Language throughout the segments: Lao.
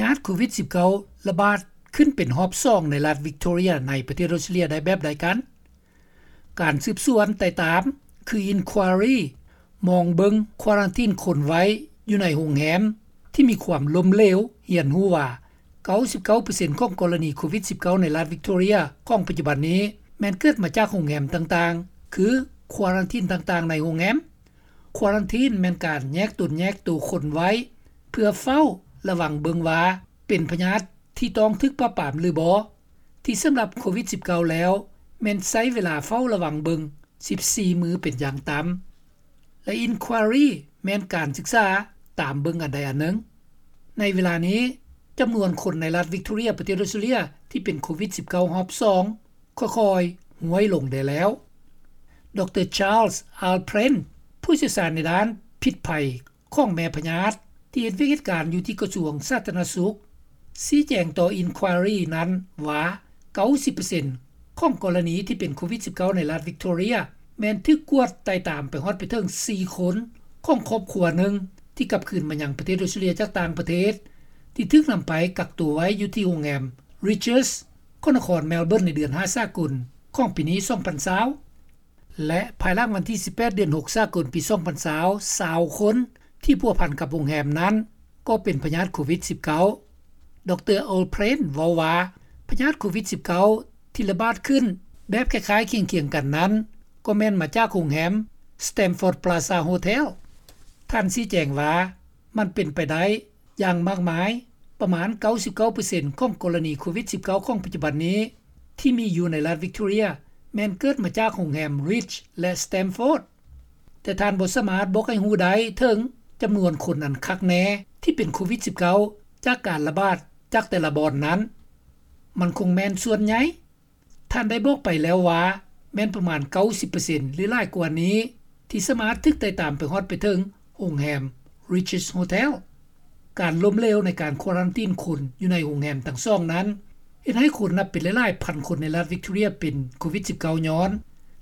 ຍາດໂຄວິດ-19 ລະບາດຂຶ້ນເປັນຮອບສອງໃນລັດວິກໂຕເຣຍ ໃນປະເທດອອສເຕຣເລັຽໄດ້ແບບໃດກັນ? ການສືບສວນໄຕ່ຕາມ ຄື Inquiry ມອງເບິ່ງຄວາຣັນທີນຄົນໄວ້ຢູ່ໃນໂຮງແຮມທີ່ມີຄວາມລົ້ມເຫຼວ ຮຽນຮູ້ວ່າ ເກົ້າສິບເກົ້າເປີເຊັນຂອງກໍລະນີໂຄວິດ-19 ໃນລັດວິກໂຕເຣຍຂອງປັດຈຸບັນນີ້ ແມ່ນເກີດມາຈາກໂຮງແຮມຕ່າງໆ ຄືຄວາຣັນທີນຕ່າງໆໃນໂຮງແຮມ. ຄວາຣັນທີນແມ່ນການແຍກຕົນແຍກໂຕຄົນໄວ້ ເພື່ອເຝົ້າລະວັງເບິ່ງວ່າເປັນພະຍາດທີ່ຕ້ອງຖືກປາບປາມຫຼືບໍ່, ທີ່ສຳລັບໂຄວິດ-19 ແລ້ວ ແມ່ນໃຊ້ເວລາເຝົ້າລະວັງເບິ່ງ ສິບສີ່ມື້ເປັນຢ່າງຕ່ຳ ແລະ Inquiry ແມ່ນການສຶກສາຕາມເບິ່ງອັນໃດອັນໜຶ່ງ. ໃນເວລານີ້ ຈຳນວນຄົນໃນລັດວິກໂຕເຣຍ ປະເທດອອສເຕຣເລັຽ ທີ່ເປັນໂຄວິດ-19 ຮອບສອງ ຄ່ອຍໆ ຮ່ວຍລົງໄດ້ແລ້ວ. ດຣ. Charles Alpren ຜູ້ຊ່ຽວຊານໃນດ້ານພິດໄພຂອງແມ່ພະຍາດ ທີ່ເຮັດວຽກເຮັດການຢູ່ທີ່ກະຊວງສາທາລະນະສຸກ ຊີ້ແຈງຕໍ່ Inquiry ນັ້ນວ່າ ເກົ້າສິບເປີເຊັນຂອງກໍລະນີທີ່ເປັນໂຄວິດ-19 ໃນລັດວິກໂຕເຣຍ ແມ່ນຖືກກວດໄຕ່ຕາມໄປຮອດໄປເຖິງສີ່ຄົນຂອງຄອບຄົວໜຶ່ງ ທີ່ກັບຄືນມາຍັງປະເທດອອສເຕຣເລັຽຈາກຕ່າງປະເທດ ທີ່ຖືກນຳໄປກັກຕົວໄວ້ຢູ່ທີ່ໂຮງແຮມ Rydges ຂອງນະຄອນ Melbourne ໃນເດືອນຫ້າສາກົນຂອງປີນີ້ ສອງພັນຊາວ ແລະ ພາຍຫຼັງວັນທີສິບແປດ ເດືອນຫົກ ສາກົນປີ ສອງພັນຊາວ ຊາວຄົນທີ່ພົວພັນກັບໂຮງແຮມນັ້ນ ກໍເປັນພະຍາດໂຄວິດ-19. ດຣ. Alpren ເວົ້າວ່າ ພະຍາດໂຄວິດ-19 ທີ່ລະບາດຂຶ້ນແບບຄ້າຍໆຄຽງໆກັນນັ້ນ ກໍແມ່ນມາຈາກໂຮງແຮມ Stamford Plaza Hotel. ທ່ານຊີ້ແຈງວ່າ ມັນເປັນໄປໄດ້ຢ່າງມາກມາຍ, ປະມານ ເກົ້າສິບເກົ້າເປີເຊັນຂອງກໍລະນີໂຄວິດ-19 ຂອງປັດຈຸບັນນີ້ ທີ່ມີຢູ່ໃນລັດວິກໂຕເຣຍ ແມ່ນເກີດມາຈາກໂຮງແຮມ Rydges ແລະ Stamford. ແຕ່ທ່ານບໍ່ສາມາດບອກໃຫ້ຮູ້ໄດ້ເຖິງຈຳນວນຄົນອັນຄັກແນ່ທີ່ເປັນໂຄວິດ-19 ຈາກການລະບາດຈາກແຕ່ລະບ່ອນນັ້ນ. ມັນຄົງແມ່ນສ່ວນໃຫຍ່. ທ່ານໄດ້ບອກໄປແລ້ວວ່າ ແມ່ນປະມານ ເກົ້າສິບເປີເຊັນ ຫຼື ຫຼາຍກວ່ານີ້ ທີ່ສາມາດຖືກໄຕ່ຕາມໄປຮອດໄປເຖິງໂຮງແຮມ Rydges Hotel. ການລົ້ມເຫຼວໃນການຄວາຣັນທີນຄົນຢູ່ໃນໂຮງແຮມທັງສອງນັ້ນ ເຮັດໃຫ້ຄົນນັບເປັນຫຼາຍໆພັນຄົນໃນລັດວິກໂຕເຣຍເປັນໂຄວິດ-19 ຍ້ອນ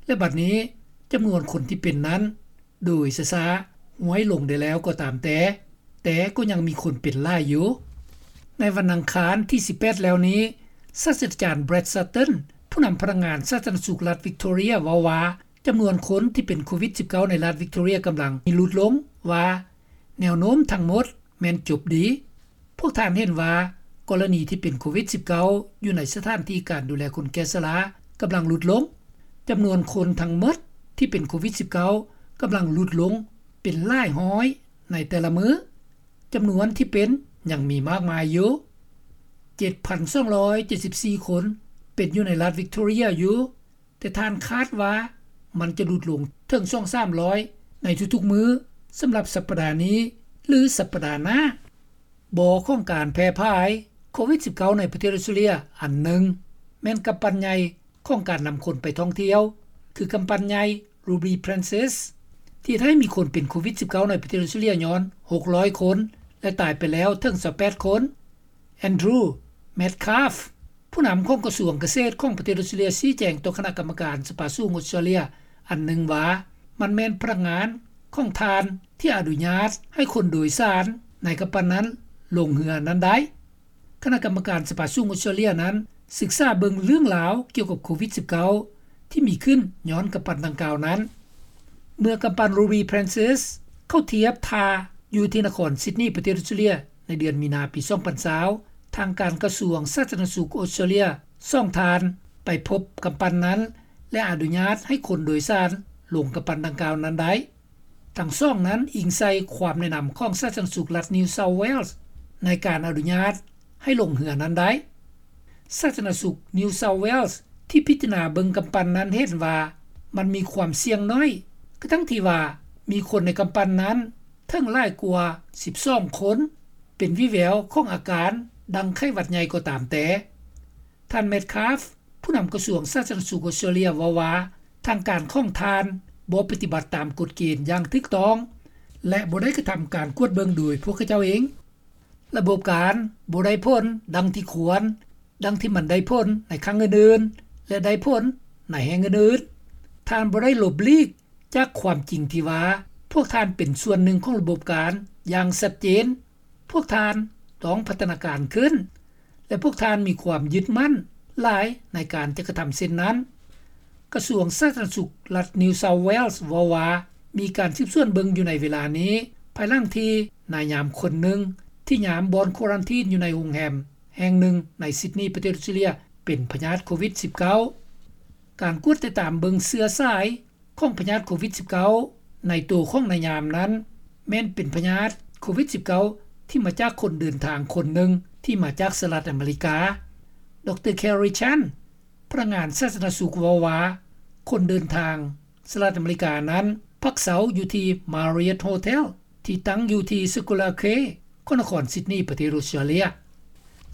ແລະ ບັດນີ້ຈຳນວນຄົນທີ່ເປັນນັ້ນ ໂດຍຊ້າໆ ຮ່ວຍລົງໄດ້ແລ້ວກໍຕາມແຕ່, ແຕ່ກໍຍັງມີຄົນເປັນຫຼາຍຢູ່. ໃນວັນອັງຄານທີສິບແປດແລ້ວນີ້, ສາດສະດາຈານ Brad Sutton ຜູ້ນຳພະນັກງານສາທາລະນະສຸກລັດວິກໂຕເຣຍ ເວົ້າວ່າ ຈຳນວນຄົນທີ່ເປັນໂຄວິດ-19 ໃນລັດວິກໂຕເຣຍກຳລັງມີຫຼຸດລົງ, ວ່າແນວໂນ້ມທັງໝົດແມ່ນຈົບດີ. ພວກທ່ານເຫັນວ່າ ກໍລະນີທີ່ເປັນໂຄວິດ-19 ຢູ່ໃນສະຖານທີ່ການດູແລຄົນແກ່ຊະລາກຳລັງຫຼຸດລົງ. ຈຳນວນຄົນທັງໝົດທີ່ເປັນໂຄວິດ-19 ກຳລັງຫຼຸດລົງເປັນຫຼາຍຮ້ອຍໃນແຕ່ລະມື້. ຈຳນວນທີ່ເປັນຍັງມີມາກມາຍຢູ່. ເຈັດພັນສອງຮ້ອຍເຈັດສິບສີ່ຄົນເປັນຢູ່ໃນລັດວິກໂຕເຣຍຢູ່. ແຕ່ທ່ານຄາດວ່າມັນຈະຫຼຸດລົງເຖິງສອງສາມຮ້ອຍໃນທຸກໆມື້ ສຳລັບສັບປະດານີ້ ຫຼື ສັບປະດາໜ້າ. ບໍ່ຂອງການແຜ່ຜາຍໂຄວິດ-19 ໃນປະເທດອອສເຕຣເລັຽອັນໜຶ່ງ ແມ່ນກຳປັ່ນໃຫຍ່ຂອງການນຳຄົນໄປທ່ອງທ່ຽວ ຄືກຳປັ່ນໃຫຍ່ Ruby Princess ທີ່ເຮັດໃຫ້ມີຄົນເປັນໂຄວິດ-19 ໃນປະເທດອອສເຕຣເລັຽຍ້ອນ ຫົກຮ້ອຍຄົນ ແລະ ຕາຍໄປແລ້ວເຖິງ ຊາວແປດຄົນ. Andrew Metcalfe ຜູ້ນຳຂອງກະຊວງກະເສດຂອງປະເທດອອສເຕຣເລັຽ ຊີ້ແຈງຕໍ່ຄະນະກຳມະການສະພາສູງອອສເຕຣເລັຽອັນໜຶ່ງວ່າ ມັນແມ່ນພະນັກງານຂອງທ່ານທີ່ອະນຸຍາດໃຫ້ຄົນໂດຍສານໃນກຳປັ່ນນັ້ນລົງເຮືອນັ້ນໄດ້. ຄະນະກຳມະການສະພາສູງອອສເຕຣເລັຽນັ້ນສຶກສາເບິ່ງເລື່ອງລາວກ່ຽວກັບໂຄວິດ-19 ທີ່ມີຂຶ້ນຍ້ອນກຳປັ່ນດັ່ງກ່າວນັ້ນ. ເມື່ອກຳປັ່ນ Ruby Princess ເຂົ້າທຽບທ່າຢູ່ທີ່ນະຄອນ Sydney ປະເທດອອສເຕຣເລັຽ ໃນເດືອນມີນາປີ ສອງພັນຊາວ ທາງການກະຊວງສາທາລະນະສຸກອອສເຕຣເລັຽ ສອງທ່ານໄປພົບກຳປັ່ນນັ້ນ ແລະ ອະນຸຍາດໃຫ້ຄົນໂດຍສານລົງກຳປັ່ນດັ່ງກ່າວນັ້ນໄດ້. ທັງສອງນັ້ນອີງໃສ່ຄວາມແນະນຳຂອງສາທາລະນະສຸກລັດ New South Wales ໃນການອະນຸຍາດໃຫ້ລົງເຮືອນັ້ນໄດ້. ສາທາລະນະສຸກ New South Wales ທີ່ພິຈາລະນາເບິ່ງກຳປັ່ນນັ້ນເຫັນວ່າມັນມີຄວາມສ່ຽງໜ້ອຍ ກະທັ່ງທີ່ວ່າມີຄົນໃນກຳປັ່ນນັ້ນເຖິງຫຼາຍກວ່າສິບສອງຄົນ ເປັນວິແວວຂອງອາການດັ່ງໄຂ້ຫວັດໃຫຍ່ກໍຕາມແຕ່. ທ່ານ Metcalfe ຜູ້ນຳກະຊວງສາທາລະນະສຸກອອສເຕຣເລັຽເວົ້າວ່າ ທາງການຂອງທ່ານບໍ່ປະຕິບັດຕາມກົດເກນຢ່າງຖືກຕ້ອງ ແລະ ບໍ່ໄດ້ກະທຳການກວດເບິ່ງໂດຍພວກເຂົາເຈົ້າເອງ. ລະບົບການບໍ່ໄດ້ຜົນດັ່ງທີ່ຄວນ, ດັ່ງທີ່ມັນໄດ້ຜົນໃນຄັ້ງອື່ນໆ ແລະ ໄດ້ຜົນໃນແຫ່ງອື່ນໆ. ທ່ານບໍ່ໄດ້ຫຼົບຫຼີກຈາກຄວາມຈິງທີ່ວ່າ ພວກທ່ານເປັນສ່ວນໜຶ່ງຂອງລະບົບການຢ່າງຊັດເຈນ. ພວກທ່ານ ຕ້ອງພັດທະນາການຂຶ້ນ ແລະ ພວກທ່ານມີຄວາມຍຶດໝັ້ນຫຼາຍໃນການຈະກະທຳເຊັ່ນນັ້ນ. ກະຊວງສາທາລະນະສຸກລັດ New South Wales ເວົ້າວ່າ ມີການສືບສວນເບິ່ງຢູ່ໃນເວລານີ້ ພາຍຫຼັງທີ່ນາຍຍາມຄົນໜຶ່ງທີ່ຍາມບ່ອນຄວາຣັນທີນຢູ່ໃນໂຮງແຮມແຫ່ງໜຶ່ງໃນຊິດນີ ປະເທດອອສເຕຣເລັຽ ເປັນພະຍາດໂຄວິດສິບເກົ້າ. ການກວດຕິດຕາມເບິ່ງເຊື້ອສາຍຂອງພະຍາດໂຄວິດສິບເກົ້າໃນໂຕຂອງນາຍຍາມນັ້ນ ແມ່ນເປັນພະຍາດໂຄວິດສິບເກົ້າທີ່ມາຈາກຄົນເດີນທາງຄົນໜຶ່ງທີ່ມາຈາກສະຫະລັດອາເມລິກາ. ດຣ. Kerry Chant ພະນັກງານສາທາລະນະສຸກເວົ້າວ່າ ຄົນເດີນທາງສະຫະລັດອາເມລິການັ້ນພັກເຊົາຢູ່ທີ່ Marriott Hotel ທີ່ຕັ້ງຢູ່ທີ່ Scholar Quay ຂອງນະຄອນຊິດນີ ປະເທດອອສເຕຣເລັຽ.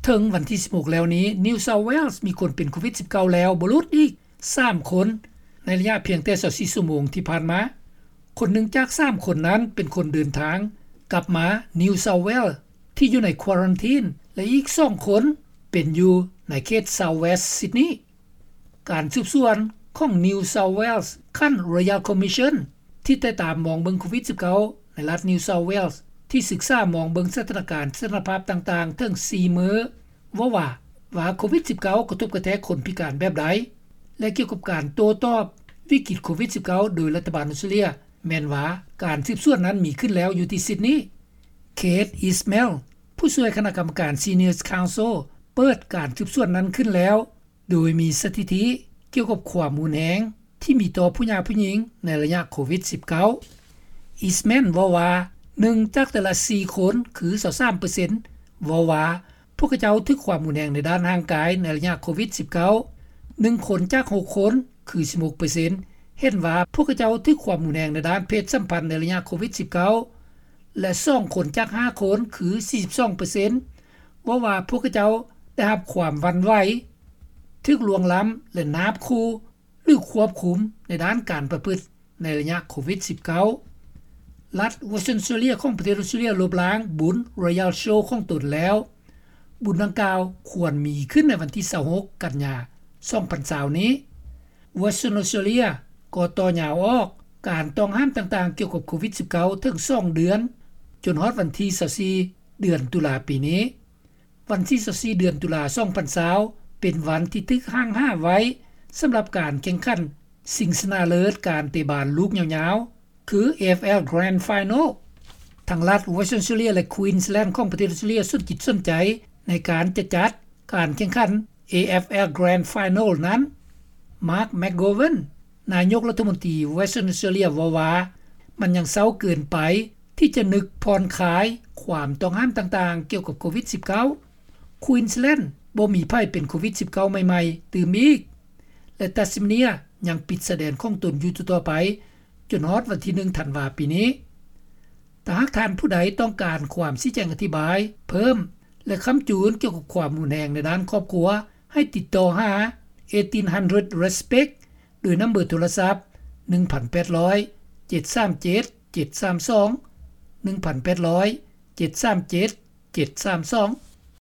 ເຖິງວັນທີສິບຫົກແລ້ວນີ້ New South Wales ມີຄົນເປັນໂຄວິດສິບເກົ້າແລ້ວບໍ່ຫຼຸດອີກສາມຄົນ ໃນໄລຍະພຽງແຕ່ຊາວສີ່ຊົ່ວໂມງທີ່ຜ່ານມາ. ຄົນໜຶ່ງຈາກສາມຄົນນັ້ນເປັນຄົນເດີນທາງກັບມາ New South Wales ທີ່ຢູ່ໃນຄວາຣັນທີນ ແລະ ອີກສອງຄົນເປັນຢູ່ໃນເຂດ South West Sydney. ການສືບສວນຂອງ New South Wales ຂັ້ນ Royal Commission ທີ່ໄດ້ຕາມມອງເບິ່ງໂຄວິດສິບເກົ້າໃນລັດ New South Wales ທີ່ສຶກສາມອງເບິ່ງສະຖານະການສະຖານະພາບຕ່າງໆເຖິງສີ່ມື້ ເວົ້າວ່າ ວ່າໂຄວິດສິບເກົ້າກະທົບກະແທກຄົນພິການແບບໃດ ແລະ ກ່ຽວກັບການໂຕ້ຕອບວິກິດໂຄວິດສິບເກົ້າໂດຍລັດຖະບານອອສເຕຣເລັຽ ແມ່ນວ່າການສືບສວນນັ້ນມີຂຶ້ນແລ້ວຢູ່ທີ່ຊິດນີ. Kate Ismail ຜູ້ຊ່ວຍຄະນະກຳມະການ Seniors Counsel ເປີດການສືບສວນນັ້ນຂຶ້ນແລ້ວ ໂດຍມີສະຖິຕິກ່ຽວກັບຄວາມຮຸນແຮງທີ່ມີຕໍ່ຜູ້ຍາກຜູ້ຍິງໃນໄລຍະໂຄວິດສິບເກົ້າ. Ismail ເວົ້າວ່າ ໜຶ່ງຈາກແຕ່ລະສີ່ຄົນ ຄື ຊາວສາມເປີເຊັນ ເວົ້າວ່າ ພວກເຂົາເຈົ້າຖືກຄວາມຮຸນແຮງໃນດ້ານຮ່າງກາຍໃນໄລຍະໂຄວິດສິບເກົ້າ. ໜຶ່ງຄົນຈາກຫົກຄົນ ຄື ສິບຫົກເປີເຊັນ ເຫັນວ່າພວກເຂົາເຈົ້າຖືກຄວາມຮຸນແຮງໃນດ້ານເພດສຳພັນໃນໄລຍະໂຄວິດສິບເກົ້າ ແລະ ສອງຄົນຈາກຫ້າຄົນ ຄື ສີ່ສິບສອງເປີເຊັນ ເວົ້າວ່າພວກເຂົາເຈົ້າໄດ້ຮັບຄວາມຫວັ່ນໄຫວ, ຖືກລ່ວງລ້ຳ ແລະ ນາບຂູ່ ຫຼື ຄວບຄຸມໃນດ້ານການປະພຶດໃນໄລຍະໂຄວິດສິບເກົ້າ. ລັດ Western Australia ຂອງປະເທດອອສເຕຣເລັຽລົບລ້າງບຸນ Royal Show ຂອງຕົນແລ້ວ. ບຸນດັ່ງກ່າວຄວນມີຂຶ້ນໃນວັນທີຊາວຫົກ ກັນຍາ ສອງພັນຊາວນີ້. Western Australia ກໍຕໍ່ຍາວອອກການຕ້ອງຫ້າມຕ່າງໆກ່ຽວກັບໂຄວິດສິບເກົ້າເຖິງສອງເດືອນ ຈົນຮອດວັນທີຊາວສີ່ ເດືອນຕຸລາປີນີ້. ວັນທີຊາວສີ່ ເດືອນຕຸລາ ສອງພັນຊາວ ເປັນວັນທີ່ຖືກຫ້າງຫາໄວ້ສຳລັບການແຂ່ງຂັນຊິງຊະນະເລີດການເຕະບານລູກຍາວໆ ຄື AFL Grand Final. ທັງລັດ Western Australia ແລະ Queensland ຂອງປະເທດອອສເຕຣເລັຽສົນຈິດສົນໃຈໃນການຈະຈັດການແຂ່ງຂັນ AFL Grand Final ນັ້ນ. Mark McGowan ນາຍົກລັດຖະມົນຕີ Western Australia ເວົ້າວ່າ ມັນຍັງເຊົ້າເກີນໄປທີ່ຈະນຶກຜ່ອນຄາຍຄວາມຕ້ອງຫ້າມຕ່າງໆກ່ຽວກັບໂຄວິດສິບເກົ້າ. Queensland ບໍ່ມີໃຜເປັນໂຄວິດສິບເກົ້າໃໝ່ໆຕື່ມອີກ ແລະ Tasmania ຍັງປິດຊາຍແດນຂອງຕົນຢູ່ຕໍ່ໆໄປ ຈົນຮອດວັນທີໜຶ່ງ ທັນວາປີນີ້. ຖ້າຫາກທ່ານຜູ້ໃດຕ້ອງການຄວາມຊີ້ແຈງອະທິບາຍເພີ່ມ ແລະ ຄ້ຳຈູນກ່ຽວກັບຄວາມຮຸນແຮງໃນດ້ານຄອບຄົວ ໃຫ້ຕິດຕໍ່ຫາ eighteen hundred respect ໂດຍນຳເບີໂທລະສັບ ໜຶ່ງພັນແປດຮ້ອຍ ເຈັດສາມເຈັດ ເຈັດສາມສອງ ໜຶ່ງພັນແປດຮ້ອຍ ເຈັດສາມເຈັດ ເຈັດສາມສອງ.